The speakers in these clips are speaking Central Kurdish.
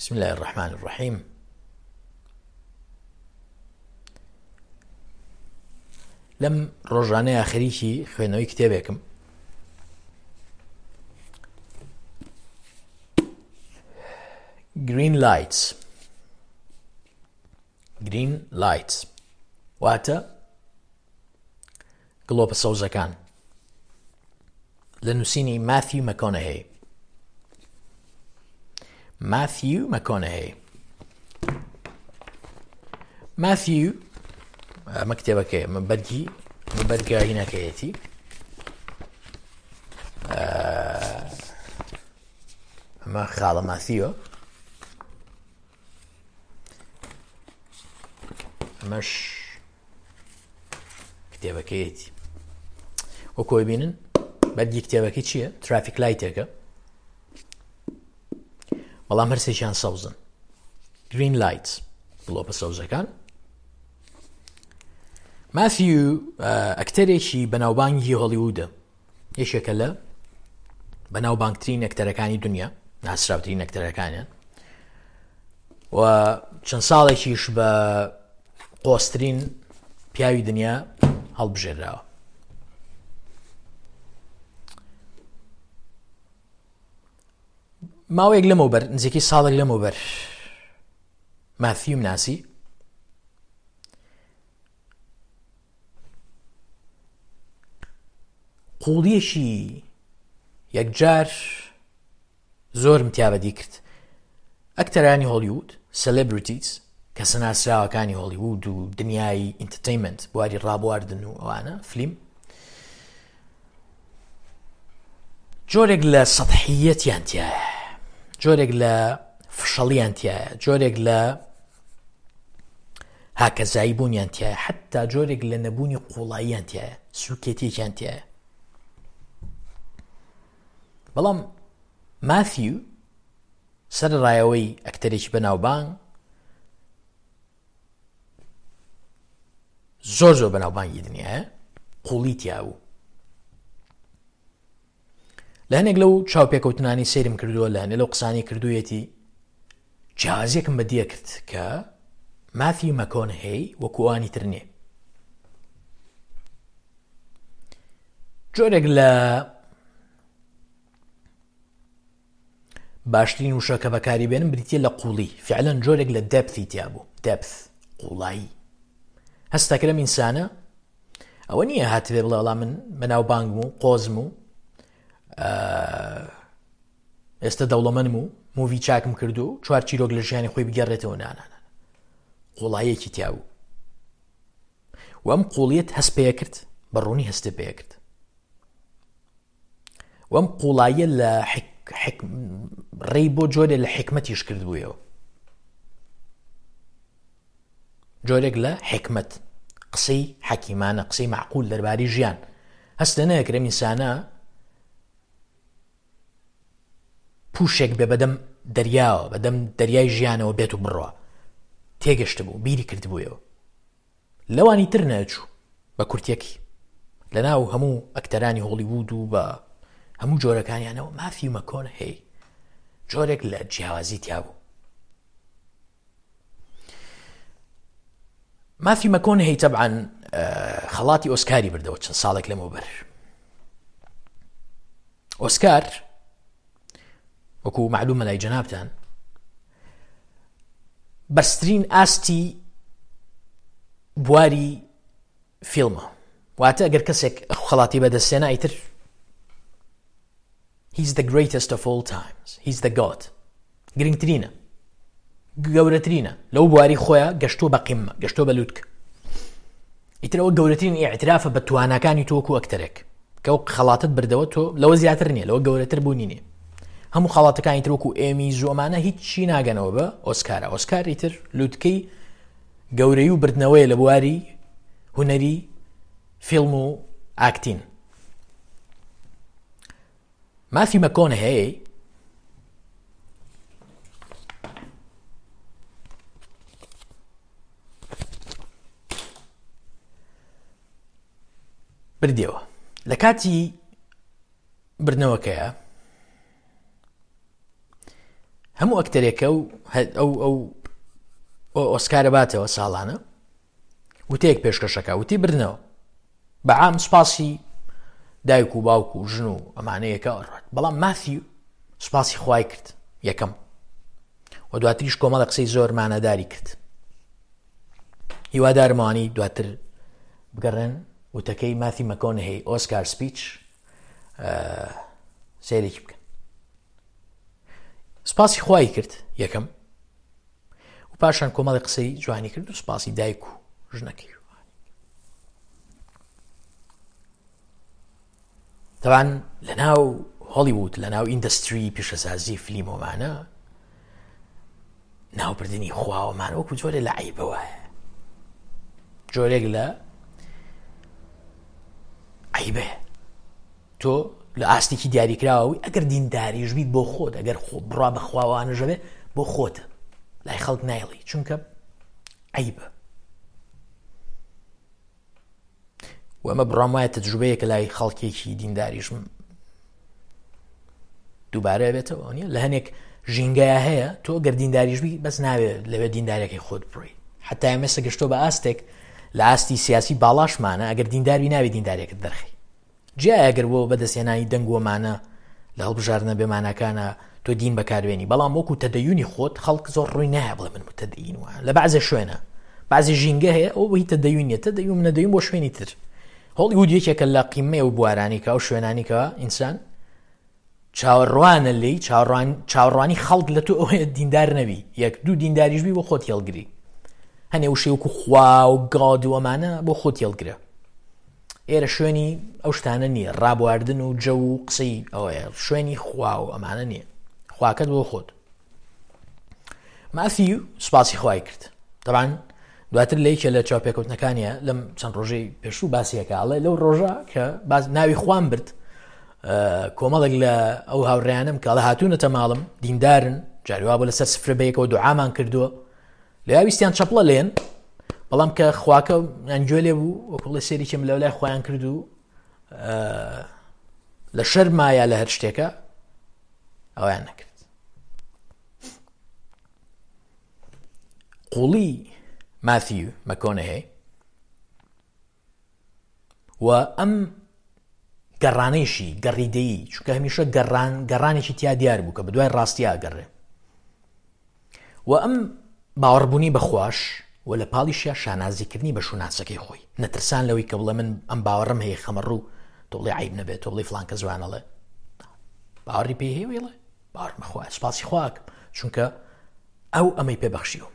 بسم الله الرحمن الرحیم لەم ڕۆژانەیە خەریکی خوێندنەوەی کتێبێکم گرین لایتس گرین لایتس واتە گڵۆپە سەوزەکان لە نووسینی ماثیو مەکۆنەهەی ماثیو مەکۆنەهەی ماثیو ئەمە کتێبەکەی ئەمە بەرگی ئەمە بەرگە هینەکەیەتی ئەمە خاڵە ماثیوە ئەمەش کتێبەکەیەتی وەکۆی بینن بەرگی کتێبەکەی چییە ترافیک لایتێکە بەڵام هەرسێکیان سەوزن گرین لایت گڵۆپە سەوزەکان ماسیو ئەکتەرێکی بەناوبانگی هۆڵیوودە یەکێکە لە بەناوبانگترین ئەکتەرەکانی دنیا ناسراوترین ئەکتەرەکانیان و چەند ساڵێکیش بە قۆسترین پیاوی دنیا هەڵبژێراوە ماوەیەک لەمەوبەر نزیکەی ساڵێک لەمەوبەر ماثیوم ناسی قوڵیەکی یەکجار زۆرم تیا بەدی کرد ئەکتەرانی هۆلیوود سەلێبریتیز کەسە ناسراوەکانی هۆلیوود و دنیای ئینتەرتەینمنت بواری ڕابواردن و ئەوانە فلیم جۆرێک لە سەحیەتیان تایە جۆرێک لە فشەڵیان تایە جۆرێک لە هاکەزایی بوونیان تایە حتا جۆرێک لە نەبوونی قوڵاییان تایە سوکێتیەکیان تایە بەڵام ماثیو سەرەڕایەوەی ئەکتەرێکی بەناوبانگ زۆر زۆر بەناوبانگی دنیاە قوڵی تیابوو لە هەنێک لەو چاوپێکەوتنانی سەیرم کردووە لە هەنێ لەو قسانی کردوویەتی جیازێکم بەدیە کرد کە مافی مەکۆن هەی وەکوانی تر نییە جۆرێک لە باشترین وشە کە بەکاری بێنم بریتە لە قوڵی فعلەن جۆرێک لە دەپتی تیا بوو دەپث قوڵایی هەستەکرم ئینسانە ئەوە نییە هاتبێ بڵێ وەڵا من بەناوبانگم و قۆزم و ئێستا دەوڵەمەنم و مووی چاکم کردو چوار چیرۆک لە ژیانی خۆی بگەڕێتەوە نانانە قوڵایەکی تیابوو و ئەم قوڵیت هەست پێ کرد بە ڕوونی هەستێ پێ کرد وەم قوڵاییە لە ڕێی بۆ جۆرێ لە حکمتیش کردبوویەوە جۆرێک لە حکمت قسەی حەکیمانە قسەی معقول دەرباری ژیان هەستە نەکرێم ئینسانە پوشێک بێ بەدەم دەریاوە بەدەم دەریای ژیانەوە بێت و بڕە تێگەشت بوو بیری کردبوویەوە لەوانی تر نەچوو بە کورتیەکی لەناو هەموو ئەکتەرانی هۆڵیوود و بە هەموو جۆرەکانیانەوە مافی مەکۆن هەی جۆرێک لە جیاوازی تیابوو مافی مەکۆن هەی تەبعاان خەڵاتی ئۆسکاری بردەوە چەند ساڵێک لەمەوبەر ئۆسکار وەکو معلومە لای جەنابتان بەرزترین ئاستی بواری فیلمە واتە ئەگەر کەسێک خەڵاتی بەدەستێنا ئیتر He's the greatest of all times. He's the God. گرنگترینە گەورەترینە لەو بواری خۆیان گەشتووە بە قیمە گەشتووە بە لوتک ئیترەوە گەورەترین ئیعترافە بە تواناکانی تۆکو ئەکتەرێک کە ئەو خەڵاتت بردەوە تۆ لەوە زیاتر نییە لەوە گەورەتر بوونی نییە هەموو خەڵاتەکانی تر وەکو ئێمی زۆمانە هیچی ناگەنەوە بە ئۆسکارە ئۆسکاری تر لوتکەی گەورەی و بردنەوەی لە بواری هونەری فیلم و ئاکتین مافی مەکۆن هەیە بردیەوە لە کاتی بردنەوەکەیە. هەموو ئەکتەرێکە و ئەو ئەو ئۆسکارە باتەوە ساڵانە وتەیەک پێشکەشەکە وتی بردنەوە بە عام سوپاسی دایک و باوک و ژن و ئەمانەیەکە ئەڕات بەڵام ماثیو سوپاسی خوای کرد یەکەم و دواتریش کۆمەڵە قسەی زۆر مانەداری کرد هیوادارمەوانی دواتر بگەڕێن وتەکەی ماثی مەکۆنهی ئۆسکار سپیچ سەیرێکی بکەن سپاسی خوای کرد یەکەم و پاشان کۆمەڵی قسەی جوانی کرد و سپاسی دایک و ژنەکەی تەوان لە ناو هۆڵیوود لە ناو ئیندەستری پیشەسازی فلیمۆمانە ناوبردنی خواوەمان وەکو جۆرێ لە عیبە وایە جۆرێک لە عیبەیە تۆ لە ئاستێکی دیاریکراوەوەی ئەگەر دینداریش بیت بۆ خۆت ئەگەر خۆ بڕا بەخواوانەژەبێ بۆ خۆتە لای خەڵک نایڵی چونکە عیبە و ئەمە بڕام وایە تەجروبەیەکە لای خەڵکێکی دینداریشم دووبارە بێتەوە نیە لە هەنێک ژینگەیە هەیە تۆ گەر دینداریش بی بەس ناوێت لەوێ دیندارەکەی خۆت بڕی حتا ئێمەسە گەشتۆ بە ئاستێک لە ئاستی سیاسی باڵاشمانە ئەگەر دینداری ناوی دیندارێکت دەرخی جیایە گەر بۆ بەدەستهێنانی دەنگ و مانا لە هەڵبژاردنە بێماناکانە تۆ دین بەکاربێنی بەڵام وەکو تەدەیونی خۆت خەڵک زۆر ڕووی نایە بڵێ من متەدەین وە لە بەعزێ شوێنە بەعزێ ژینگە هەیە ئەو هی تەدەیون نیە تەدەیون نەدەیون بۆ شوێنی تر هۆڵیوود یەکێکە لە قیمەی ئەو بوارانی کە ئەو شوێنانی کە ئینسان چاوەڕوانە لێی چاوەڕوان چاوەڕوانی خەڵک لە تۆ ئەوەیە دیندار نەبی یەک دوو دینداریش بی بۆ خۆت هێڵگری هەنێ وشەی وەکو خوا و گاد و ئەمانە بۆ خۆت هێڵگرە ئێرە شوێنی ئەو شتانە نییە ڕابواردن و جەو و قسەی ئەوەیە شوێنی خوا و ئەمانە نییە خواکەت بۆ خۆت مافی سوپاسی خوای کرد تەبان دواتر لە یەکێ لە چاوپێکەوتنەکانیە لەم چەند ڕۆژەی پێشوو باسیەکە ئەڵێ لەو ڕۆژە کە باز ناوی خوان برد کۆمەڵێک لە ئەو هاوڕیانم کە ئەڵە هاتوونەتە ماڵم دیندارن جاریوا بۆ لەسەر سفرە بەیەکەوە دوعامان کردووە لە ویستیان چەپڵە لێن بەڵام کە خواکە یان گوێ لێ بوو وەکوڵێ سێریکم لەو لای خۆیان کرد و لە شەرمایە لە هەر شتێکە ئەویان نەکرد قوڵی ماثیو مەکۆنەهەی و ئەم گەڕانەیشی گەڕیدەیی چونکە هەمیشە گەڕان گەڕانێکی تیا دیار بوو کە بەدوای ڕاستیا گەڕێ و ئەم باوەڕبوونی بەخواش و لە پاڵیشیا شانازیکردنی بە شوناسەکەی خۆی نەترسان لەوەی کە بڵێ من ئەم باوەڕم هەیە خەمەڕوو تۆ بڵێ عیب نەبێت تۆ بڵێ فلان کە زوانەڵێ باوەڕی پێی هەیە ویڵێ باوەڕم بەخوا سوپاسی خواکەم چونکە ئەو ئەمەی پێ بەخشیوم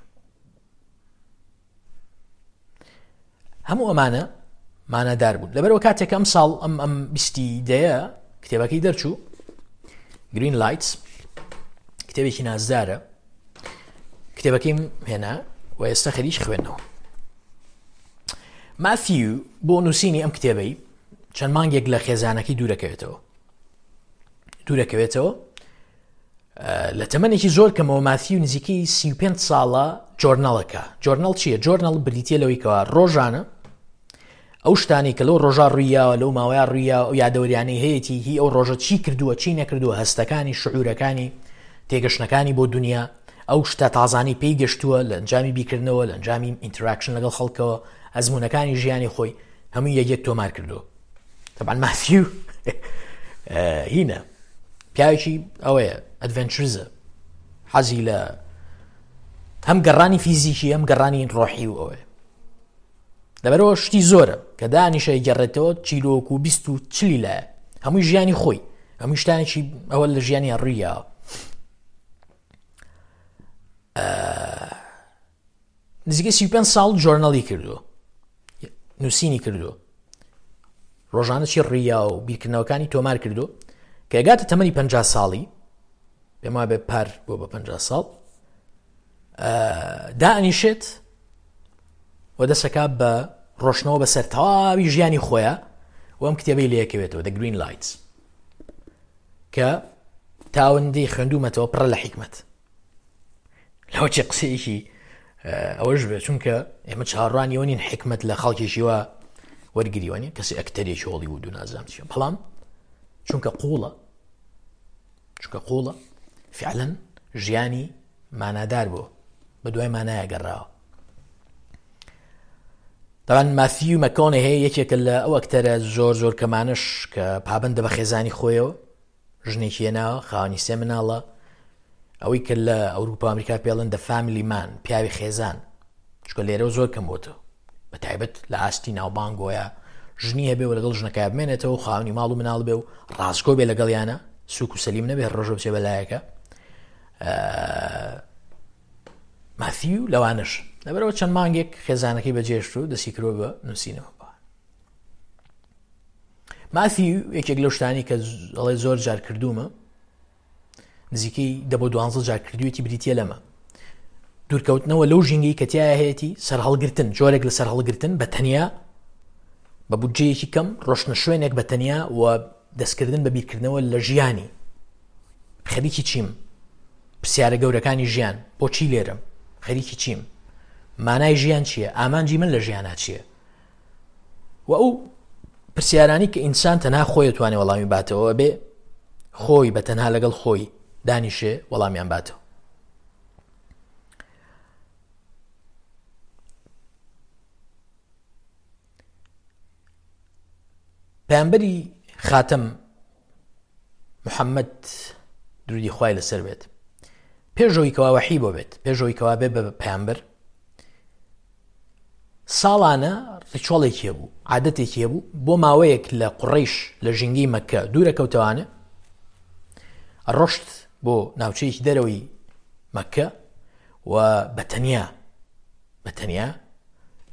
هەموو ئەمانە مانادار بوون لەبەرەوە کاتێک ئەم ساڵ ئەم ئەم بیستی دەیە کتێبەکەی دەرچوو گرین لایتس کتێبێکی نازدارە کتێبەکەیم هێنا و ئێستا خەریک خوێندنەوە مافیو بۆ نووسینی ئەم کتێبەی چەند مانگێک لە خێزانەکەی دوورەکەوێتەوە دوورەکەوێتەوە لە تەمەنێکی زۆر کەمەوە ماثیو نزیکەی 35 ساڵە جۆرنەڵەکە جۆرنەڵ چییە جۆرنەڵ بریتە لەوەی کەوا ڕۆژانە ئەو شتانی کە لەو ڕۆژا ڕوویاوە لەو ماوەیە ڕوویا و یادەوەریانەی هەیەی هی ئەو ڕۆژە چی کردووە چی نەکردووە هەستەکانی شعورەکانی تێگەشتنەکانی بۆ دنیا ئەو شتە تازانی پێی گەشتووە لە ئەنجامی بیکردنەوە لە ئەنجامی ئینتراکشن لەگەڵ خەڵکەوە ئەزمونونەکانی ژیانی خۆی هەموو یەک یەک تۆمار کردووە طبعا ماثیو هینە پیاوێکی ئەوەیە ئەدڤنچرزە حەزی لە هەم گەڕانی فیزیکی هەم گەڕانی ڕۆحی و ئەوەیە لەبەرەوە شتی زۆرە کە دانیشە گەڕێتەوە چیرۆک و بیست و چلی لایە هەمووی ژیانی خۆی هەموو شتانێکی ئەوە لە ژیانی ڕوویاوە نزیکەی 35 ساڵ جۆرنەڵی کردووە نووسینی کردووە ڕۆژانە چی ڕیا و بیرکردنەوەکانی تۆمار کردو کە گاتە تەمەنی 50 ساڵی پێم وابێ پار بۆ بە 50 ساڵ دانیشێت و دەسەکە بە ڕۆشنەوە بەسەر تەواوی ژیانی خۆیان و ئەم کتێبەی لەکەوێتەوە The Green Lights کە تاوەندەی خوێندومەتەوە پڕە لە حیکمەت لەوە چی قسەیەکی ئەوەش بێت چونکە ئێمە چاڕوانی ئەوە نین حکمت لە خەڵکێکی وا وەرگریوە نیە کەسی ئەکتەرێکی هۆڵی و دوو نازام چیە بەڵام چونکە قوڵە چونکە قوڵە فعلەن ژیانی مانادار بوو، بە دوای مانایە گەڕاوە. دەڵێن ماثیو مەکۆنەهی یەکێکە لە ئەو ئەکتەرە زۆر زۆر کەمانەش کە پابەندە بە خێزانی خۆیەوە، ژنێکی هێناوە، خاوەنی سێ مناڵە، ئەوەی کە لە ئەوروپا ئەمریکا پێڵن دە فامیلی مان، پیاوی خێزان، چونکە لێرەوە زۆر کەم بۆتەوە، بە تایبەت لە ئاستی ناوبانگۆیە ژنی هەبێ و لەگەڵ ژنەکە بمێنێتەوە و خاوەنی ماڵ و مناڵ بێ و ڕاستگۆ بێ لەگەڵیانە، سوک و سەلیم نەبێ، ڕۆژە بچێ بەلایەکە. ماثیو لەوانەش لەبەرەوە چەند مانگێک خێزانەکەی بەجێشت و دەستی کرۆ بە نووسینەوە. ماثیو یەکێک لەو شتانی کە ئەڵێ زۆر جار کردوومە، نزیکەی دە بۆ دوانزە جار کردوویەتی، بریتییە لەمە دوورکەوتنەوە لەو ژینگەی کە تیایا هەیەتی، سەرهەڵگرتن، جۆرێک لە سەرهەڵگرتن بە تەنیا بە بودجەیەکی کەم، ڕۆشتنە شوێنێک بە تەنیا و دەستکردن بە بیرکردنەوە لە ژیانی، خەریکی چیم، پرسیارە گەورەکانی ژیان، بۆچی لێرەم، خەریکی چیم، مانای ژیان چییە، ئامانجی من لە ژیانا چییە، و ئەو پرسیارانی کە ئینسان تەنها خۆی توانێ وەڵامی باتەوە، بێ خۆی بە تەنها لەگەڵ خۆی دانیشێ وەڵامیان باتەوە. پەیامبەری خاتەم محەممەد درودی خوای لەسەر بێت، پێشەوەی کەوا وەحی بۆ بێت، پێشەوەی کەوا بێ بە پەیامبەر، ساڵانە ڕیچۆڵێکی هەبوو، عادەتێکی هەبوو، بۆ ماوەیەک لە قوڕەیش لە ژینگەی مەکە دوورە کەوتەوانە، ڕۆشت بۆ ناوچەیەکی دەرەوەی مەکە و بە تەنیا بە تەنیا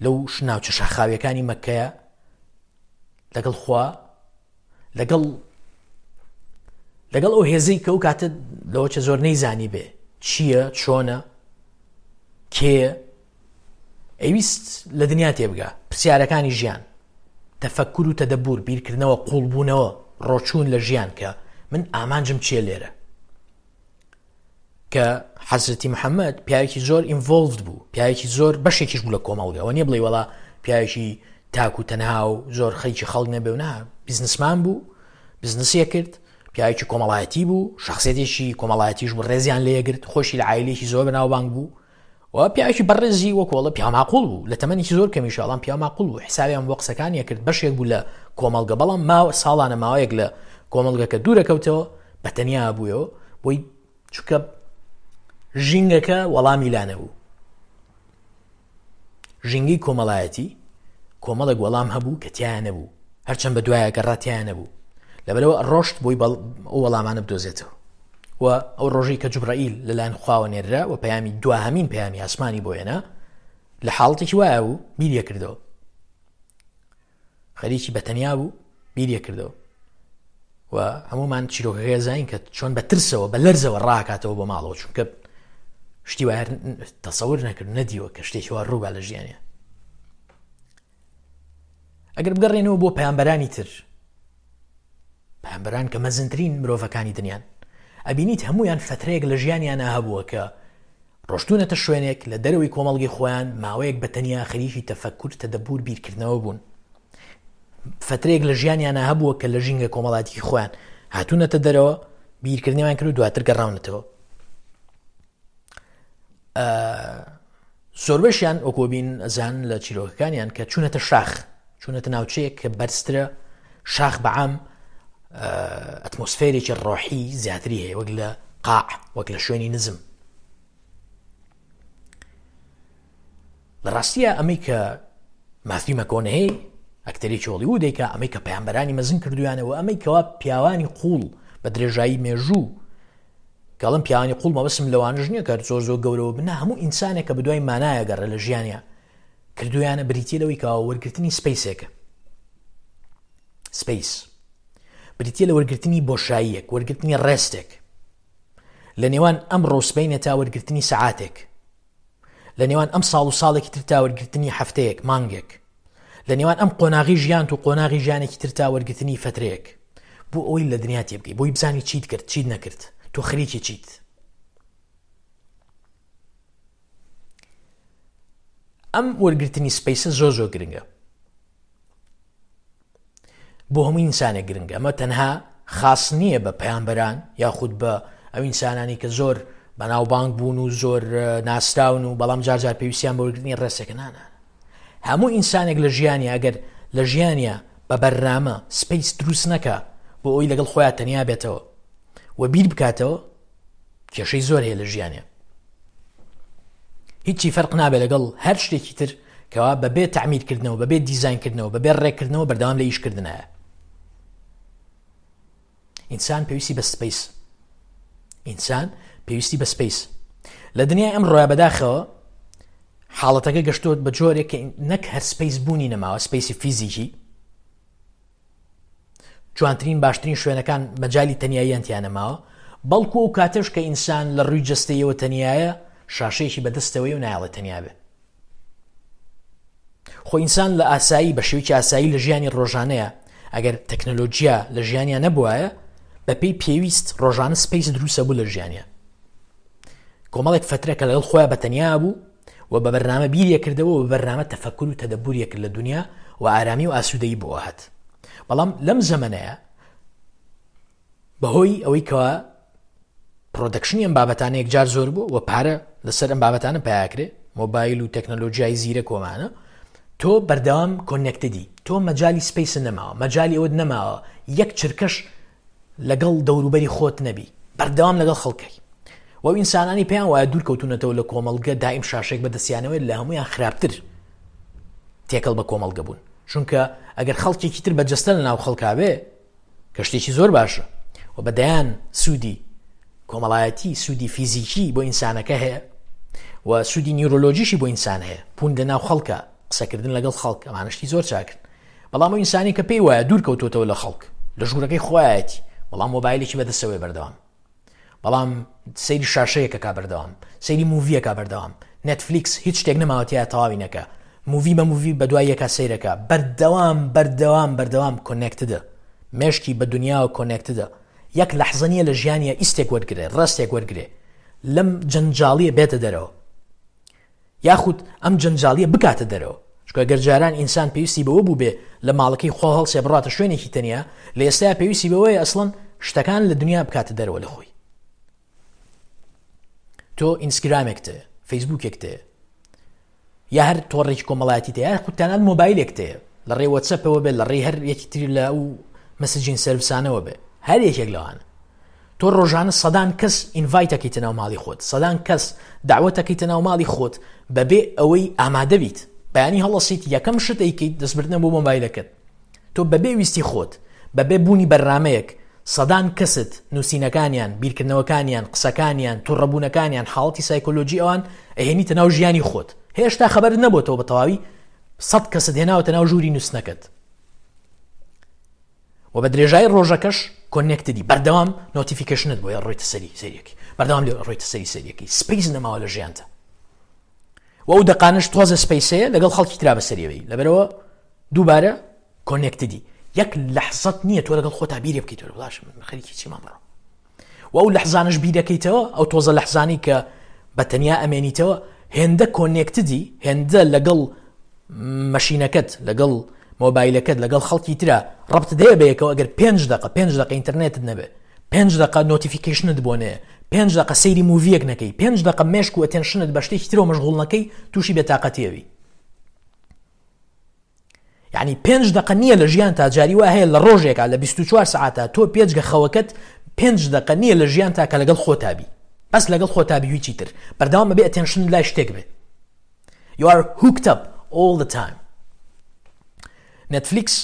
لەو ناوچە شاخاویەکانی مەکەیە لەگەڵ خوا، لەگەڵ لەگەڵ ئەو هێزەی کە ئەو کاتە لەوە چە زۆر نەیزانی بێ چییە، چۆنە، کێیە، ئەویست لە دنیا تێبگا، پرسیارەکانی ژیان، تەفەکر و تەدەبور، بیرکردنەوە، قوڵبوونەوە، ڕۆچوون لە ژیان کە من ئامانجم چییە لێرە. کە حەزرەتی محەممەد پیاوێکی زۆر ئینڤۆلڤد بوو، پیاوێکی زۆر بەشێکیش بوو لە کۆمەڵگەوە، نییە بڵێ وەڵا پیاوێکی تاک و تەنها و زۆر خەریکی خەڵک نەبێ و نا، بزنسمان بوو، بزنسیە کرد، پیاوێکی کۆمەڵایەتی بوو، شخصێتێکی کۆمەڵایەتیش بوو، ڕێزیان لێگرت، خۆشی لە عایلێکی زۆر بەناوبانگ بوو و پیاوێکی بەڕێزی وەکۆڵە پیاو ماقوڵ بوو، لە تەمەنێکی زۆر کەمیش ئەڵام پیاو ماقوڵ بوو، حسابیان بۆ قسەکانی کرد، بەشێک بوو لە کۆمەڵگە، بەڵام ماوە ساڵانە ماوەیەک لە کۆمەڵگەکە دوورە کەوتەوە، بە تەنیا بوویەوە، بۆی چونکە ژینگەکە وەڵامی لا نەبوو. ژینگەی کۆمەڵایەتی کۆمەڵێک وەڵام هەبوو کە تیایە نەبوو، هەرچەند بە دوایە گەڕا تیایە نەبوو، لەبەرەوە ڕۆشت بۆی ئەو وەڵامانە بدۆزێتەوە. و ئەو ڕۆژەی کە جوبرائیل لەلایەن خواوە نێررا و پەیامی دواهەمین پەیامی ئاسمانی بۆ هێنا، لە حاڵەتێکی وایە بوو بیریە کردەوە، خەریکی بە تەنیا بوو بیریە کردەوە و هەمومان چیرۆکەکەی زانین کە چۆن بە ترسەوە بە لەرزەوە ڕاکاتەوە بۆ ماڵەوە، چونکە شتی وایە تەسەور نەکرد، نەدیوە کە شتێکی وا ڕووبا لە ژیانیان. ئەگەر بگەڕێنەوە بۆ پەیامبەرانی تر، پەیامبەران کە مەزنترین مرۆڤەکانی دنیان، ئەبینیت هەمویان فترەیەک لە ژیانیانە هەبووە کە ڕۆشتونەتە شوێنێک لە دەرەوەی کۆمەڵگەی خۆیان، ماوەیەک بە تەنیا خەریکی تەفەکور، تەدەبور، بیرکردنەوە بوون. فترەیەک لە ژیانیانە هەبووە کە لە ژینگە کۆمەڵایەتی خۆیان هاتوونەتە دەرەوە، بیرکردنەوەیان کرد و دواتر گەڕاونەتەوە. زۆربەشیان وەکۆبین ئەزان لە چیرۆکەکانیان کە چوونەتە شاخ، چوونەتە ناوچەیەک کە بەرزترە، شاخ بەعام ئەتمۆسفێرێکی ڕۆحی زیاتری هەیە وەک لە قاع، وەک لە شوێنی نزم. لە ڕاستیە ئەمەی کە ماثیو مەکۆنەهی ئەکتەرێکی هۆڵیوودێکە، ئەمەی کە پەیامبەرانی مەزن کردویانەوە، ئەمەی کەوا پیاوانی قوڵ بە درێژایی مێژوو، کەڵم پیاوانی قوڵ مەبەستم لەوانەش نییە کە زۆر زۆر گەورەوە بن، هەموو ئینسانێک کە بەدوای مانایە گەڕێ لە ژیانیا کردویانە بریتیە لەوەی کەوا وەرگرتنی سپەیسێکە. سپەیس بریتیە لە وەرگرتنی بۆشاییەک، وەرگرتنی ڕێستێک لە نێوان ئەمڕۆ و سبەینێ تا وەرگرتنی سەعاتێک، لە نێوان ئەم ساڵ و ساڵێکی تر تا وەرگرتنی هەفتەیەک، مانگێک، لە نێوان ئەم قۆناغی ژیانت و قۆناغی ژیانێکی تر تا وەرگرتنی فترەیەک، بۆ ئەوەی لە دنیا تێبگەی، بۆی بزانی چیت کرد، چیت نەکرد، تۆ خەریکی چیت. ئەم وەرگرتنی سپەیسە زۆر زۆر گرنگە، بۆ هەموو ئینسانێک گرنگە. ئەمە تەنها خاص نییە بە پەیامبەران یاخود بە ئەو ئینسانانی کە زۆر بەناوبانگ بوون و زۆر ناسراون و بەڵام جار جار پێویستیان بە وەرگرتنی ڕێسێکە. نا نا، هەموو ئینسانێک لە ژیانیا ئەگەر لە ژیانیا بە بەرنامە space دروست نەکا بۆ ئەوی لەگەڵ خۆیان تەنیا بێتەوە و بیر بکاتەوە، کێشەی زۆر هەیە لە ژیانیا. هیچی فەرق نابێت لەگەڵ هەر شتێکی تر کەوا بەبێ تەعمیرکردنەوە، بەبێ دیزاینکردنەوە، بەبێ ڕێککردنەوە بەردەوام لە ئیشکردنایە. ئینسان پێویستی بە space، ئینسان پێویستی بە space. لە دنیای ئەمڕۆیا بەداخەوە حاڵەتەکە گەشتۆت بە جۆرێک کە نەک هەر space بوونی نەماوە، space ی فیزیکی، جوانترین باشترین شوێنەکان مەجای تەنیاییان تیا نەماوە، بەڵکو ئەو کاتەش کە ئینسان لە ڕووی جەستەیەوە تەنیایە، شاشەیەکی بەدەستەوەی و نایەڵێ تەنیا بێ. خۆ ئینسان لە ئاسایی بە شێوەیەکی ئاسایی لە ژیانی ڕۆژانەیە ئەگەر تەکنەلۆجیا لە ژیانیان نەبوایە بەپێی پێویست ڕۆژانە space دروستە بوو لە ژیانە. کۆمەڵێک فترە کە لەگەڵ خۆیان بە تەنیا بوو و بە بەرنامە بیریە کردەوە و بە بەرنامە تەفەکر و تەدەبوریە کرد لە دنیا و ئارامی و ئاسوودەیی بۆ هات. بەڵام لەم زەمەنەیە بەهۆی ئەوەی کەوا production ی ئەم بابەتانە یەکجار زۆر بوو و پارە لەسەر ئەم بابەتانە پیاکرێ، مۆبایل و تەکنەلۆژیای زیرەک ومانە، تۆ بەردەوام connected ی، تۆ مەجای space نەماوە، مەجای ئەوەت نەماوە یەک چرکەش لەگەڵ دەوروبەری خۆت نەبی، بەردەوام لەگەڵ خەڵکەی. و ئەو ئینسانانی پێیان وایە دوور کەوتونەتەوە لە کۆمەڵگە، دائیم شاشێک بەدەستیانەوەی لە هەمویان خراپتر تێکەڵ بە کۆمەڵگە بوون. چونکە ئەگەر خەڵکێکی تر بە جەستە لە ناو خەڵکا بێ، کە شتێکی زۆر باشە و بە دەیان سوودی کۆمەڵایەتی، سوودی فیزیکی بۆ ئینسانەکە هەیە و سوودی نیورۆلۆژیشی بۆ ئینسان هەیە، بوون لە ناو خەڵکە، قسەکردن لەگەڵ خەڵک، ئەمانە شتی زۆر چاکن. بەڵام ئەو ئینسانی کە پێی وایە دوور کەوتوتەوە لە خەڵک، لە ژوورەکەی خۆیەتی، بەڵام مۆبایلێکی بەدەستەوەی بەردەوام، بەڵام سەیری شاشەیەکەکە بەردەوام، سەیری movie یەکە بەردەوام، نێتفلیکس هیچ شتێک نەماوەتیە تەواوی نەکە، movie بە movie بە دوای یەکا سەیرەکە، بەردەوام بەردەوام بەردەوام connected ە، مێشکی بە دنیاوە connected ە. یەک لەحزە نییە لە ژیانیە ئیستێک وەرگرێ، rest ێک وەرگرێ، لەم جەنجاڵیە بێتە دەرەوە، یاخود ئەم جەنجاڵیە بکاتە دەرەوە. چونکە گەر جاران ئینسان پێویستی بەوە بوو بێ لە ماڵەکەی خۆ هەڵسێ بڕاتە شوێنێکی تەنیا، لە ئێستا پێویستی بەوەیە ئەسڵەن شتەکان لە دنیا بکاتە دەرەوە لە خۆی. تۆ ئینستاگرامێک تێ، فەیسبوکێک تێ، یا هەر تۆڕێکی کۆمەڵایەتی تێ، یا خود تەنانەت مۆبایلێک تێ، لە ڕێی وەتسەپەوە بێ، لە ڕێی هەر یەکی تری لە ئەو messaging service انەوە بێ، هەر یەکێک لەوانە. تۆ ڕۆژانە سەدان کەس invite ئەکەیتە ناو ماڵی خۆت، سەدان کەس داوەت ئەکەیتە ناو ماڵی خۆت بەبێ ئەوەی ئامادە بیت. بەیانی هەڵەسیت یەکەم شت ئەیکەیت دەستبردنە بۆ مۆبایلەکەت. تۆ بەبێ ویستی خۆت، بەبێ بوونی بەرنامەیەک، سەدان کەست نووسینەکانیان، بیرکردنەوەکانیان، قسەکانیان، توڕەبوونەکانیان، حاڵەتی سایکۆلۆژی ئەوان ئەهێنیتە ناو ژیانی خۆت. هێشتا خەبەرت نەبۆتەوە بە تەواوی 100 کەست هێناوەتە ناو ژووری نووسنەکەت. و بە درێژایی ڕۆژەکەش connected ی، بەردەوام notification ت بۆیە ڕۆیتە سەری سەریەکی، بەردەوام لێ ڕۆیتە سەری سەریەکی، space نەماوە لە ژیانتە. و ئەو دەقانەش تۆزە space ەیە لەگەڵ خەڵکی ترا بەسەریەوەی، لەبەرەوە دووبارە connected ی. یەک لەحزەت نییە تۆ لەگەڵ خۆتا بیرێ بکەیتەوە باش من خەریکی چیمان بڕۆ. و ئەو لەحزانەش بیرەکەیتەوە، ئەو تۆزە لەحزانی کە بە تەنیا ئەمێنیتەوە، هێندە connected ی، هێندە لەگەڵ مەشینەکەت، لەگەڵ مۆبایلەکەت، لەگەڵ خەڵکی ترا ڕەبت دەیە بەیەکەوە. ئەگەر 5 دقە، 5 دقە ئینتەرنێتت نەبێ، 5 دقە notification ت بۆ نەیە، 5 دقە سەیری movie یەک نەکەی، 5 دقە مێشک و attention ت بە شتێکی ترەوە مەشغوڵ نەکەی، تووشی بێتاقەتیەوی. یعنی 5 دقە نییە لە ژیان تا جاری وا هەیە لە ڕۆژێکا لە 24 سعاتا تۆ پێجگە خەوەکەت 5 دقە نییە لە ژیان تا کە لەگەڵ خۆتا بی، بەس لەگەڵ خۆتا بی هیچی تر. بەردەوام بەبێ attention لای شتێک بێ. You are hooked up all the time. نێتفلیکس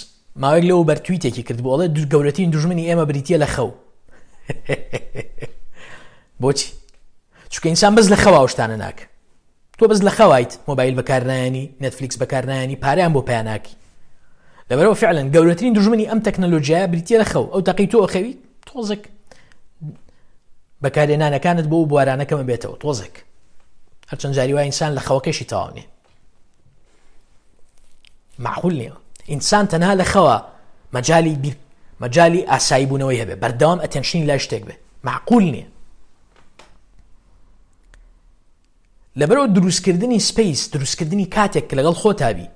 ماوەیەک لەوە بەر tweet ێکی کرد بۆ ئەڵێ گەورەترین دوژمنی ئێمە بریتییە لە خەو. بۆچی؟ چونکە ئینسان بەس لە خەوا شتانە ناکە. تۆ بەس لە خەوایت مۆبایل بەکارنایانی، نێتفلیکس بەکارنایانی، پارەیان بۆ پیا ناکەی. لەبەرەوە فعلا گەورەترین دوژمنی ئەم تەکنەلۆژیایە بریتییە لە خەو. ئەو تەقی تۆ ئەخەوی تۆزێک بەکارهێنانەکانت بۆ بوارانە کەمە بێتەوە تۆزێک. هەرچەند جاری وای ئینسان لە خەوەکەشی تەواو نییە، معقول نییە ئینسان تەنها لە خەوە مەجای بیر مەجای ئاسایی بوونەوەی هەبێ، بەردەوام attention ی لای شتێک بێ، معقول نییە. لەبەرەوە دروستکردنی space، دروستکردنی کاتێک کە لەگەڵ خۆتا بی،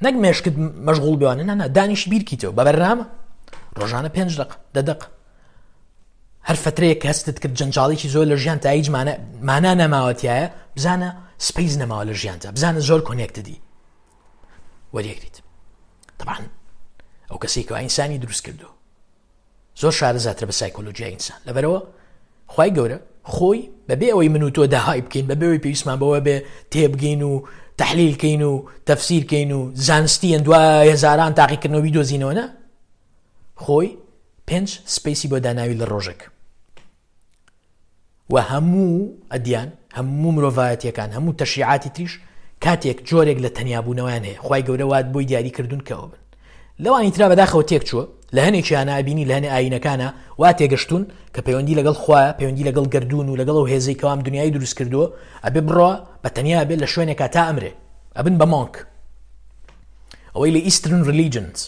نەک مێشکت مەشغوڵ بێوانە، نا نا، دانیش بیرکیتەوە بە بەرنامە ڕۆژانە 5 دقە، 10 دقە. هەر فترەیەک کە هەستت کرد جەنجاڵێکی زۆر لە ژیان تا هیچ مانا نەماوە تایە، بزانە space نەماوە لە ژیانتا، بزانە زۆر connected ی وەریەگریت. طبعا ئەو کەسێک کە ئینسانی دروست کردو زۆر شارەزاترە بە سایکۆلۆژیای ئینسان، لەبەرەوە خوای گەورە خۆی بەبێ ئەوەی من و تۆ داهای بکەین، بەبێ ئەوەی پێویستمان بەوە بێ تێبگەین و تەحلیل کەین و تەفسیر کەین و زانستی دوای هەزاران تاقیکردنەوە بیدۆزینەوە، نە، خۆی 5 space ی بۆ داناوی لە ڕۆژێک و هەموو ئەدیان، هەموو مرۆڤایەتیەکان، هەموو تەشریعاتی تریش کاتێک جۆرێک لە تەنیابوونەوەیان هەیە، خوای گەورە وات بۆی دیاری کردوون کە ئەوە بن. لەوانی ترا بەداخەوە تێک چووە، لە هەنێکیانە ئەبینی لە هەنێ ئایینەکانە وا تێگەشتوون کە پەیوەندی لەگەڵ خوایە، پەیوەندی لەگەڵ گەردوون و لەگەڵ ئەو هێزەی کەوام دنیای دروست کردووە، ئەبێ بڕوا بە تەنیا بێ لە شوێنێکا تا ئەمرێ، ئەبن بە monk. ئەوەی لە Eastern religions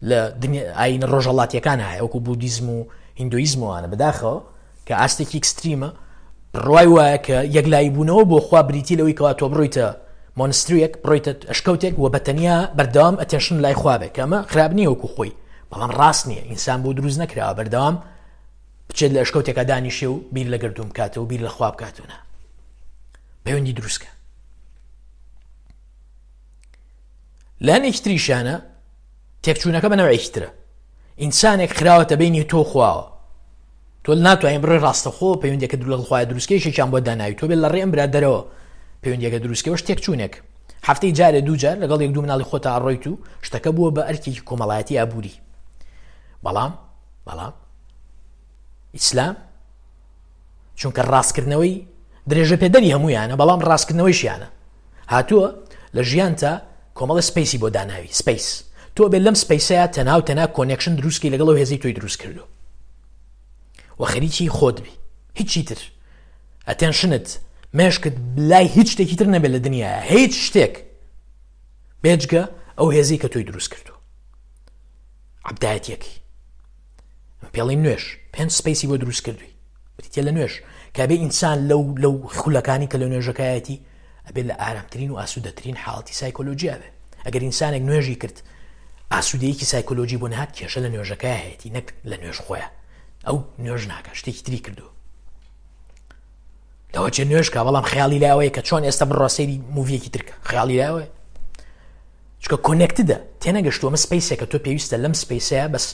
لە ئایینە ڕۆژهەڵاتیەکان هەیە وەکو بودیزم و هیندۆیزم وانە، بەداخەوە کە ئاستێکی extreme ە، بڕوای وایە کە یەکلایی بوونەوە بۆ خوا بریتی لەوەی کەوا تۆ بڕۆیتە monastery یەک، بڕۆیتە ئەشکەوتێک و بە تەنیا بەردەوام attention لای خوا بێ، کە ئەمە خراپ نییە وەکو خۆی، بەڵام ڕاست نییە. ئینسان بۆ دروست نەکراوە بەردەوام بچێت لە ئەشکەوتێکا دانیشێ و بیر لە گەردوون بکاتەوە و بیر لە خوا بکاتەوە، نا، پەیوەندی دروستکە. لە هەنێکی تریشانە تێکچوونەکە بە نەوعێکی ترە، ئینسانێک خراوەتە بینی تۆ خواوە، تۆ ناتوانین بڕۆی ڕاستەخۆ پەیوەندیەکە لەگەڵ خوایە دروستکەی، یەکێکیان بۆ داناوی تۆ بێت لە ڕێ ئەم برادەرەوە پەیوەندیەکە دروستکەوەش تێکچوونێک. هەفتەی جارێ دوو جار لەگەڵ یەک دوو مناڵی خۆتا ئەڕۆیت و شتەکە بووە بە ئەرکێکی کۆمەڵایەتی ئابووری. بەڵام ئیسلام چونکە ڕاستکردنەوەی درێژە پێدەری هەمویانە، بەڵام ڕاستکردنەوەیشیانە، هاتووە لە ژیانتا کۆمەڵە space ی بۆ داناوی. space تۆ بێت لەم space ەیە تەنها و تەنها connection دروستکەی لەگەڵ ئەو هێزەی تۆی دروست کردو و خەریکی خۆت بی، هیچی تر attention ت مێشکت لای هیچ شتێکی تر نەبێت لە دنیاە، هیچ شتێک بێجگە ئەو هێزەی کە تۆی دروست کردو. عەبدایەتیەکەی پێڵی نوێژ 5 space ی بۆ دروست کردووی، بریتە لە نوێژ کە بێ ئینسان لەو خولەکانی کە لە نوێژەکایەتی ئەبێت لە ئارامترین و ئاسوودەترین حاڵەتی سایکۆلۆژیا بێ. ئەگەر ئینسانێک نوێژی کرد ئاسوودەیەکی سایکۆلۆژی بۆ نهات، کێشە لە نوێژەکە هەیەی نەک لە نوێژ خۆیان. ئەو نوێژ ناکە، شتێکی تری کردو لەوە چێ نوێژکە، بەڵام خەیاڵی لاوەیە کە چۆن ئێستا بڕۆ سەیری movie یەکی ترکە، خەیاڵی لاوەیە چونکە connected ە، تێنەگەشتووە. ئەمە space ێکە تۆ پێویستە لەم space ەیە بەس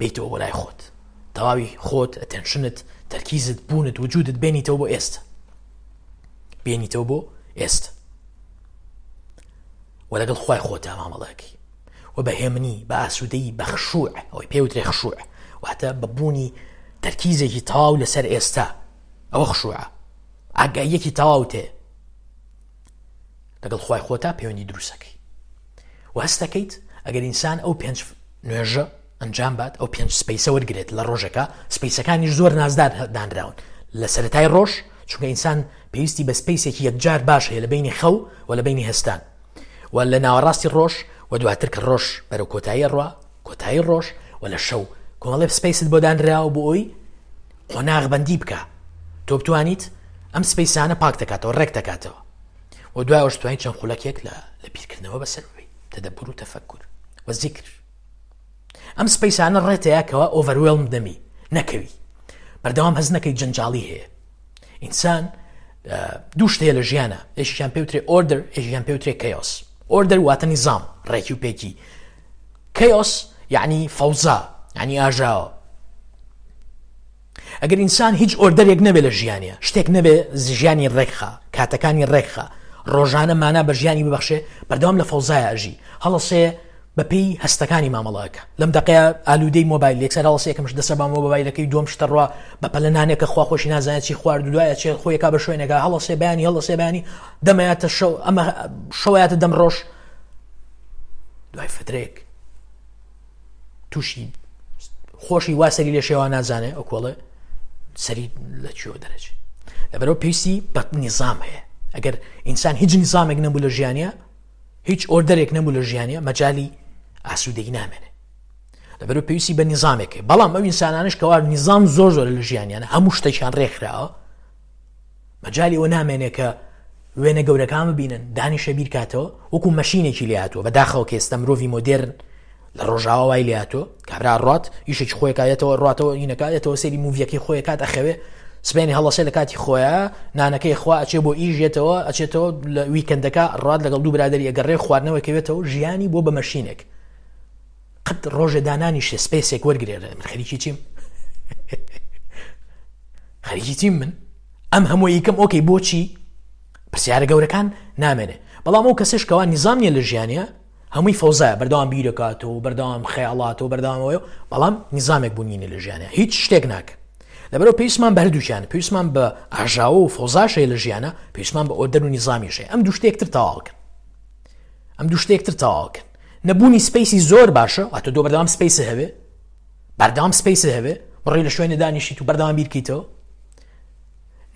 بیتەوە بۆ لای خۆت، تەواوی خۆت، attention ت، تەرکیزت، بوونت، وجودت بێنیتەوە بۆ ئێستا، بێنیتەوە بۆ ئێستا و لەگەڵ خوای خۆتا مامەڵەکەی و بە هێمنی، بە ئاسوودەیی، بە خشوع، ئەوەی پێوترێ خشوع، واتە بە بوونی تەرکیزێکی تەواو لەسەر ئێستا، ئەوە خشوعە، ئاگاییەکی تەواو تێ لەگەڵ خوای خۆتا پەیوەندی دروستەکەی و هەستەکەیت. ئەگەر ئینسان ئەو 5 نوێژە ئەنجام بات، ئەو 5 space ە وەرگێت لە ڕۆژەکە، space ەکانیش زۆر نازدار دانراون لە سەرەتای ڕۆژ، چونکە ئینسان پێویستی بە space ێکی یەکجار باش هەیە لە بینی خەو و لە بینی هەستان و لە ناوەڕاستی ڕۆژ و دواتر کە ڕۆژ بەرەو کۆتایی ڕوا، کۆتایی ڕۆژ و لە شەو. کۆمەڵێ space ت بۆ دانراوە بۆ ئەوی قۆناغ بەندی بکە تۆ بتوانیت ئەم space انە پاک دەکاتەوە، ڕێک دەکاتەوە و دوای ئەوش توانیت چەند خولەکێک لە بیرکردنەوە بەسەر ببەیت، تەدەبور و تەفەکور و زیکر. ئەم space انە ڕێتەیە کەوا overwhelm دەمی نەکەوی، بەردەوام هەز نەکەی جەنجاڵی هەیە. ئینسان دوو شت هەیە لە ژیانە، یەکێکیان پێوترێ order، یەکێکیان پێوترێ chaos. order واتە نیزام، ڕێکی و پێکی. chaos یعنی فەوزا، یعنی ئاژاوە. ئەگەر ئینسان هیچ order ێک نەبێ لە ژیانە، شتێک نەبێ ژیانی ڕێکخا، کاتەکانی ڕێکخا، ڕۆژانە مانا بە ژیانی ببەخشێ، بەردەوام لە فەوزایە ئەژی. هەڵەسێ بەپێی هەستەکانی مامەڵەکە، لەم دقەیە ئالوودەی مۆبایل، یەکسەر هەڵەسێ یەکەم شت دەسە بە مۆبایلەکەی، دووەم شتە ڕوا بە پەلە نانێکە خوا خۆشی نازانێت چی خوارد و دوایە چێ خۆیەکا بە شوێنێکا. هەڵەسێ بەیانی، هەڵەسێ بەیانی دەمەیاتە شەو، ئەمە شەوەیاتە دەم ڕۆژ. دوای فترێک تووشی خۆشی وا سەری لێ شێوا نازانێ ئەو کۆڵێ سەری لە کوێوە دەرەچێ. لەبەرەوە پێویستی بە نیزام هەیە. ئەگەر ئینسان هیچ نیزامێک نەبوو لە ژیانە، هیچ order ێک نەبوو لە ژیانە، مەجای ئاسوودەی نامێنێ. لەبەرەوە پێویستی بە نیزامێک هەیە. بەڵام ئەو ئینسانانش کەوا نیزام زۆر زۆر لە ژیانیانە، هەموو شتێکیان ڕێکخراوە، مەجای ئەوە نامێنێ کە وێنە گەورەکان ببینن، دانیشە بیرکاتەوە، وەکو machine ێکی لێ هاتووە. بەداخەوە کە ئێستا مرۆڤی مۆدێرن لە ڕۆژاوا وای لێهاتووە کابرا ڕات ئیشێکی خۆی کایەتەوە ڕاتەوە هینەکایەتەوە سەیری movie یەکەی خۆی کات ئەخەوێ سبێنی هەڵەسێ لە کاتی خۆیان نانەکەی خوا ئەچێ بۆ ئیش یەتەوە ئەچێتەوە لە weekend ەکە ڕات لەگەڵ دوو برادری ئەگەڕێ خواردنەوە کەوێتەوە ژیانی بۆ بە machine ێک قەت ڕۆژێ دانانیشێ space ێک وەرگێ من خەریکی چیم خەریکی چیم من ئەم هەموو یکەم okay بۆچی پرسیارە گەورەکان نامێنێ بەڵام ئەو کەسش کەوا نیزام نیە لە ژیانە هەمووی فەوزایە بەردەوام بیرەکاتەوە و بەردەوام خەیاڵاتەوە بەردەوامەوە بەڵام نیزامێک بوونی لە ژیانە هیچ شتێک ناکە لەبەرەوە پێویستمان بە هەردووکیان پێویستمان بە ئاژاوە و فەوزاش هەیە لە ژیانە پێویستمان بە order و نیزامیش هەیە ئەم دوو شتێکتر تەواوکەن ئەم دوو شتێکتر تەواوکەن نەبوونی space ی زۆر باشە واتە تۆ بەردەوام space هەبێ بەردەوام space هەبێ بڕی لە شوێنە دانیشیت و بەردەوام بیرکەیتەوە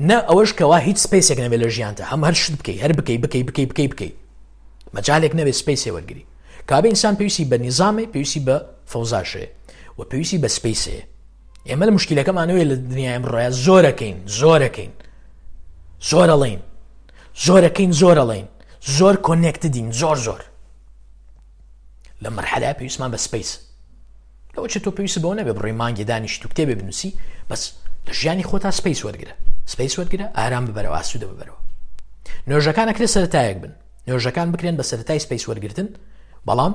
نە ئەوەش کەوا هیچ space ێک نەبێت لە ژیانتا هەم هەر شت بکەی هەر بکەی بکەی بکەی بکەی بکەی مەجالێک نەبێت space ێ وەرگری کابێ ئینسان پێویستی بە نیزامێ پێویستی بە فەوزاشەیە و پێویستی بە space ێ ئێمە لە مشکلەکەمانەوەی لە دنیای ئەمڕۆیە زۆرەکەین زۆرەکەین زۆرەڵین زۆرەکەین زۆرەڵین زۆر connected ین زۆر زۆر لە مەرحەلە پێویستمان بە space لەوە چێت تۆ پێویست بەوە نەبێ بڕۆی مانگی دانیشت و کتێبێ بنووسی بەس لە ژیانی خۆتا space وەرگرە space وەرگرە ئارام ببەرەوە ئاسوودە ببەرەوە نوێژەکان ئەکرێ سەرەتایەک بن نوێژەکان بکرێن بە سەرەتای space وەرگتن بەڵام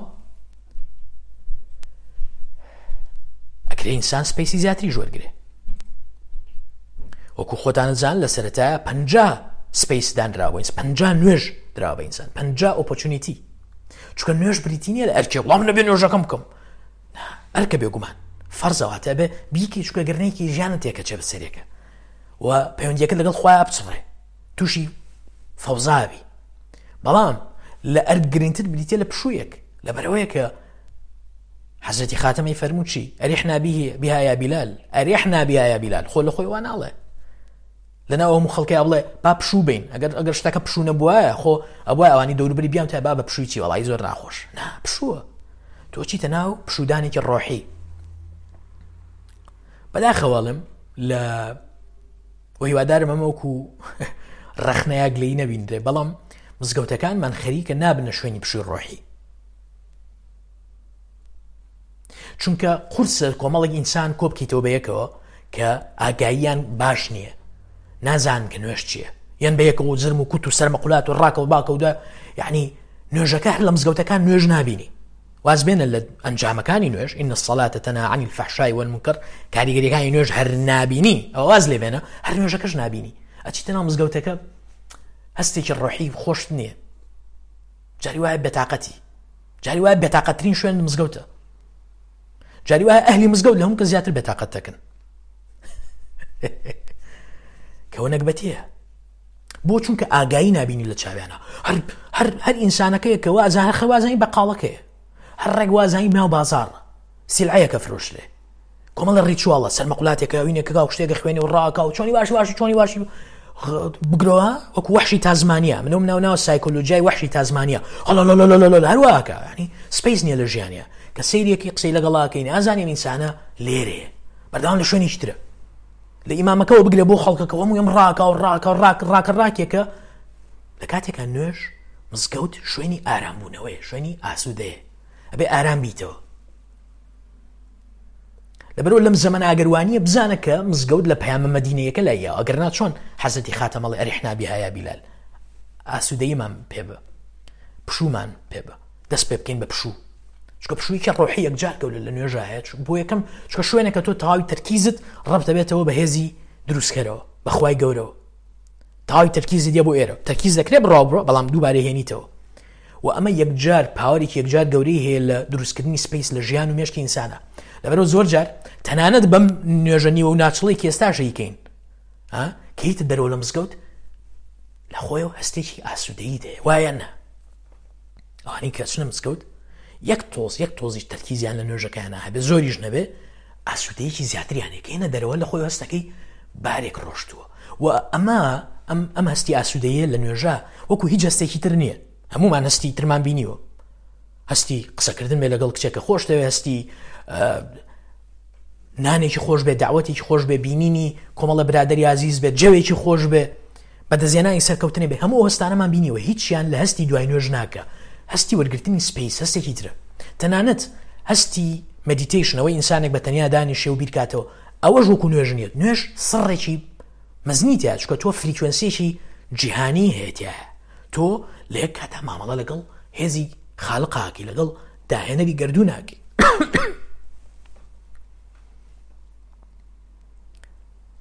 ئەکرێ ئینسان space ی زیاتری وەرگێ وەکو خۆتانە زان لە سەرەتایە پ space دانراوە پ نوێژ درا بە ئینسان پ opportunity چونکە نوێژ بریتی نییە لە ئەرکێ وڵام نەبێ نوێژەکەم بکەم ئەرکە بێگومان فەرزەواتە بێ بیکی چونکە گەرنێکی ژیانت تێکە چێ بەسەرێکە و پەیوەندیەکە لەگەڵ خۆیان بچڕێ تووشی فەوزاوی بەڵام لە ئەرک گرنگتر بریتە لە پشوویەک لەبەرەوەیە کە حەزرەتی خاتەمەی فەرموو چی ئەریحنا بها یا بیلال ئەریحنا بها یا بیلال خۆ لە خۆی وان ناڵێ لەناو هەموو خەڵکیا بڵێ با پشوو بین ئەگەر ئەگەر شتەکە پشوو نەبوایە خۆ ئەبوایە ئەوانی دەوروبەری بیان تا با بە پشووی چی وەڵی زۆر ناخۆش نا پشووە تۆ چیتە ناو پشوودانێکی ڕۆحی بەداخەوەڵم لە و هیوادارم ئەمە وەکو ڕەخنەیە گلەی نەبینرێ بەڵام مزگەوتەکانمان خەریکە نابنە شوێنی پشووی ڕۆحی چونکە قورسە کۆمەڵێک ئینسان کۆبکەیتەوە بە یەکەوە کە ئاگاییان باش نییە نازان کە نوێش چییە یان بە یەکەوە جرم و کوت و سەرمەقولات و ڕاکە و باکە ودا یعنی نوێژەکە هەر لە مزگەوتەکان نوێژ نابینی وازبێنە لە ئەنجامەکانی نوێژ إن الصلاة تنهى عن الفحشاء والمنكر کاریگەریەکانی نوێژ هەر نابینی ئەوە واز لێ بێنە هەر نوێژەکەش نابینی ئەچیتە ناو مزگەوتەکە هەستێکی ڕۆحی خۆشت نییە جاری وایە بێتاقەتی جاری وایە بێتاقەترین شوێن مزگەوتە جاری وایە ئەهلی مزگەوت لە هەموو کە زیاتر بێتاقەت دەکەن کەەوە نەگبەتیە بۆ چونکە ئاگایی نبینی لە چاویانە هەر هەر هەر ئینسانەکەیە کە وازان هەر خەوازانی بەقاڵەکەیە هەر ڕێک وازانی ناو بازاڕ سیلعەیەکە فرۆشرێ کۆمەڵە ritual ە سەرمەقولاتێکە ئەوینێکە و شتێکە خوێنێ و ڕاکە و چۆنی باشی باشی چۆنی باشی بگرەوە وەکو وەحشی تازمانیا منم ناو ناو سایکۆلۆژیای وەحشی تازمانیا هەڵ هەروواکە ینی space نییە لە ژیانە کە سەیرێکی قسەی لەگەڵاکەین ئازانین ئینسانە لێرەیە بەردەوام لە شوێنێکی ترە لە ئیمامەکەەوە بگرە بۆ خەڵکەکە هەموو ئەم ڕاکە و ڕاکە و ڕاک ڕاکە ڕاکێکە لە کاتێکا نوێژ مزگەوت شوێنی ئارامبوونەوەیە شوێنی ئاسوودەیە ئەبێ ئارام بیتەوە لەبەرئەوە لەم زەمەنە ئەگەر وانییە بزانە کە مزگەوت لە پەیامە مەدینەیەکە لای یاوە ئەگەر نا چۆن حەزرەتی خاتەم ئەڵێ ئەریحنا بها یا بیلال ئاسوودەییمان پێ بە پشوومان پێ بە دەست پێ بکەین بە پشوو چونکە پشوویەکی ڕۆحی یەکجار گەورە لە نوێژا هەیە بۆ یەکەم چونکە شوێنێکە تۆ تەواوی تەرکیزت ڕەبت دەبێتەوە بە هێزی دروستکەرەوە بە خوای گەورەوە تەواوی تەرکیزت یە بۆ ئێرە تەرکیز دەکرێت بڕاو بڕۆ بەڵام دووبارە هێنیتەوە و ئەمە یەکجار power ێکی یەکجار گەورەی هەیە لە دروستکردنی space لە ژیان و مێشکی ئینسانە لەبەرەوە زۆر جار تەنانەت بەم نوێژە نیوە و ناچڵی کە ئێستاش ئەیکەین کەیتە دەرەوە لە مزگەوت لە خۆیەوە هەستێکی ئاسوودەیی دەیە وایە نا ئەوانەی کە چنە مزگەوت یەک تۆز یەک تۆزیش تەرکیزیان لە نوێژەکەیانە هەبێ زۆریش نەبێ ئاسوودەیەکی زیاتریان هەیە کە دەرەوە لە خۆی هەستەکەی بارێک ڕۆشتووە و ئەمە ئەم ئەم هەستی ئاسوودەیە لە نوێژە وەکو هیچ هەستێکی تر نییە هەمومان هەستی ترمان بینیوە هەستی قسەکردن بێ لەگەڵ کچێکە خۆش دەوێ هەستی نانێکی خۆش بێ داوەتێکی خۆش بێ بینینی کۆمەڵە برادری ئازیز بێت جەوێکی خۆش بێ بەدەستهێنانی سەرکەوتنێ بێ هەموو ئەو هەستانەمان بینیوە هیچیان لە هەستی دوای نوێژ ناکە هەستی وەرگرتنی space هەستێکی ترە تەنانەت هەستی meditation، ئەوەی ئینسانێک بە تەنیا دانیشێ و بیرکاتەوە، ئەوەش وەکو نوێژ نییە. نوێژ سڕێکی مەزنی تیا، چونکە تۆ frequency ێکی جیهانی هەیە تیایە. تۆ لە یەک کاتا مامەڵە لەگەڵ هێزی خالقاکی، لەگەڵ داهێنەری گەردووناکی.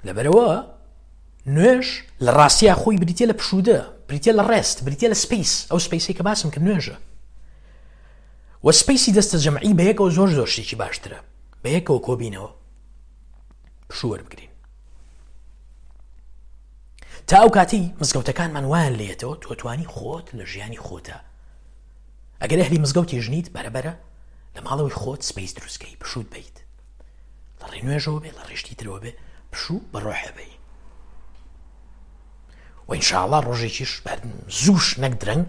لەبەرەوە نوێژ لە ڕاستیا خۆی بریتە لە پشوودە، بریتە لە rest، بریتە لە space، ئەو space ەی کە باسم کرد نوێژە. و space ی دەستە جەمعی بە یەکەوە زۆر زۆر شتێکی باشترە، بە یەکەوە کۆبینەوە پشوو وەربگرین. تا ئەو کاتی مزگەوتەکانمان وایان لێتەوە تۆ توانی خۆت لە ژیانی خۆتە، ئەگەر ئەهلی مزگەوتی ژنیت بەرەبەرە لە ماڵەوەی خۆت space دروستکەی پشووت بیت، لە ڕێ نوێژەوە بێ، لە ڕێشتی ترەوە بێ، پشوو بە ڕۆحێ بی. و ئینشاءڵا ڕۆژێکیش زووش نەک درەنگ،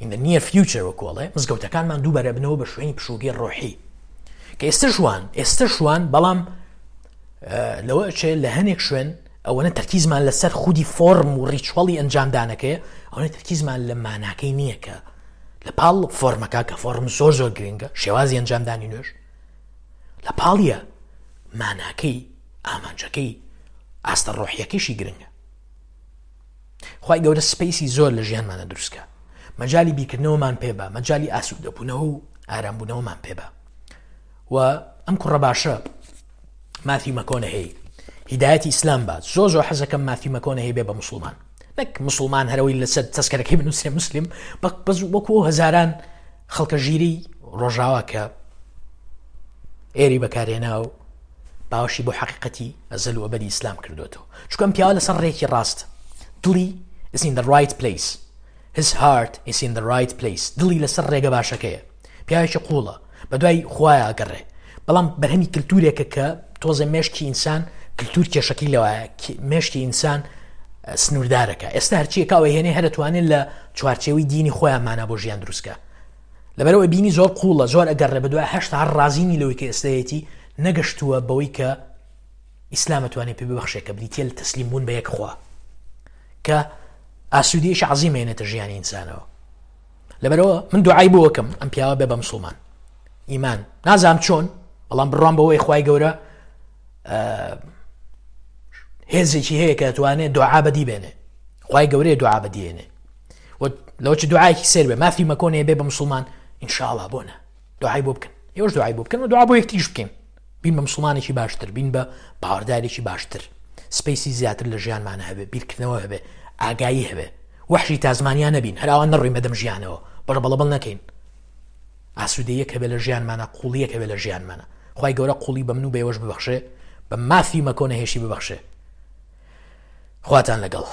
in the near future وەکۆڵێ مزگەوتەکانمان دووبارە بنەوە بە شوێنی پشووگەی ڕۆحی کە ئێستا شوان، ئێستا شوان، بەڵام لەوە ئەچێ لە هەنێک شوێن ئەوەنە تەرکیزمان لەسەر خودی فۆرم و ritual ی ئەنجامدانەکەی، ئەوەنە تەرکیزمان لە ماناکەی نییە کە لە پاڵ فۆرمەکە، کە فۆرم زۆر زۆر گرنگە، شێوازی ئەنجامدانی نوێژ لە پاڵیە ماناکەی، ئامانجەکەی، ئاستە ڕۆحیەکەیشی گرنگە. خوای گەورە space ی زۆر لە ژیانمانە دروستکە، مەجای بیرکردنەوەمان پێ بە، مەجای ئاسوودەبوونەوە و ئارامبوونەوەمان پێ بە. و ئەم کوڕە باشە ماثیو مەکۆنەهەی هیدایەتی ئیسلام بات، زۆر زۆر حەزەکەم ماثیو مەکۆنەهەی بێ بە مسلمان، نەک مسلمان هەرەوەی لەسەر تەسکەرەکەی بنووسێ مسلم، بەس وەکو ئەو هەزاران خەڵکە ژیری ڕۆژاوا کە ئێری بەکارێنا و باوەشی بۆ حەقیقەتی ئەزەل و ئەبەدی ئیسلام کردوێتەوە. چونکە ئەم پیاوە لەسەر ڕێکی ڕاست، دڵی is in the right place، his heart is in the right place، دڵی لەسەر ڕێگە باشەکەیە، پیاوێکی قوڵە، بە دوای خوایە ئەگەڕێ، بەڵام بەرهەمی کللتورێکە کە تۆزە مێشکی ئینسان، کللتور کێشەکەی لەوایە مێشکی ئینسان سنووردارەکە. ئێستا هەرچیەکە ئەوە هێنێ هەرەتوانێت لە چوارچێوەی دینی خۆیان مانا بۆ ژیان دروستکە. لەبەرەوە بینی زۆر قوڵە، زۆر ئەگەڕێ بە دوای هەشتا هەر ڕازینی لەوەی کە ئێستایەتی، نەگەشتووە بەوەی کە ئیسلام ئەتوانێت پێ ببەخشێت، کە بریتیە لە تەسلیم بوون بە یەک خوا، کە ئاسوودەیەکی عەزیم هێنێتە ژیانی ئینسانەوە. لەبەرەوە من دوعای بۆ وەکەم ئەم پیاوە بێ بە مسلمان ئیمان، نازام چۆن، بەڵام بڕوام بەوەی خوای گەورە هێزێکی هەیە کە توانێت دوعا بەدی بێنێ، خوای گەورەیە دوعا بەدیێنێ. و لەوە چ دوعایەکی سێر بێ مافی مەکۆنێ بێ بە مسلمان ئینشاءڵا، بۆ نە دوعای بۆ بکەن، ئێوەش دوعای بۆ بکەن و دوعا بۆ یەکتریش بکەین، بین بە مسلمانێکی باشتر، بین بە باوەڕدارێکی باشتر، space ی زیاتر لە ژیانمانە هەبێ، بیرکردنەوە هەبێ، ئاگایی هەبێ، وەحشی تازمانیا نەبین، هەراوان نەڕۆین بەدەم ژیانەوە، بەڵەبەڵەبەڵ نەکەین، ئاسوودەیەک هەبێ لە ژیانمانە، قوڵیەک هەبێ لە ژیانمانە. خوای گەورە قوڵی بە من و بە ئێوەش ببەخشێ، بە مافی مەکۆنە هێشی ببەخشێ. خواتان لەگەڵ.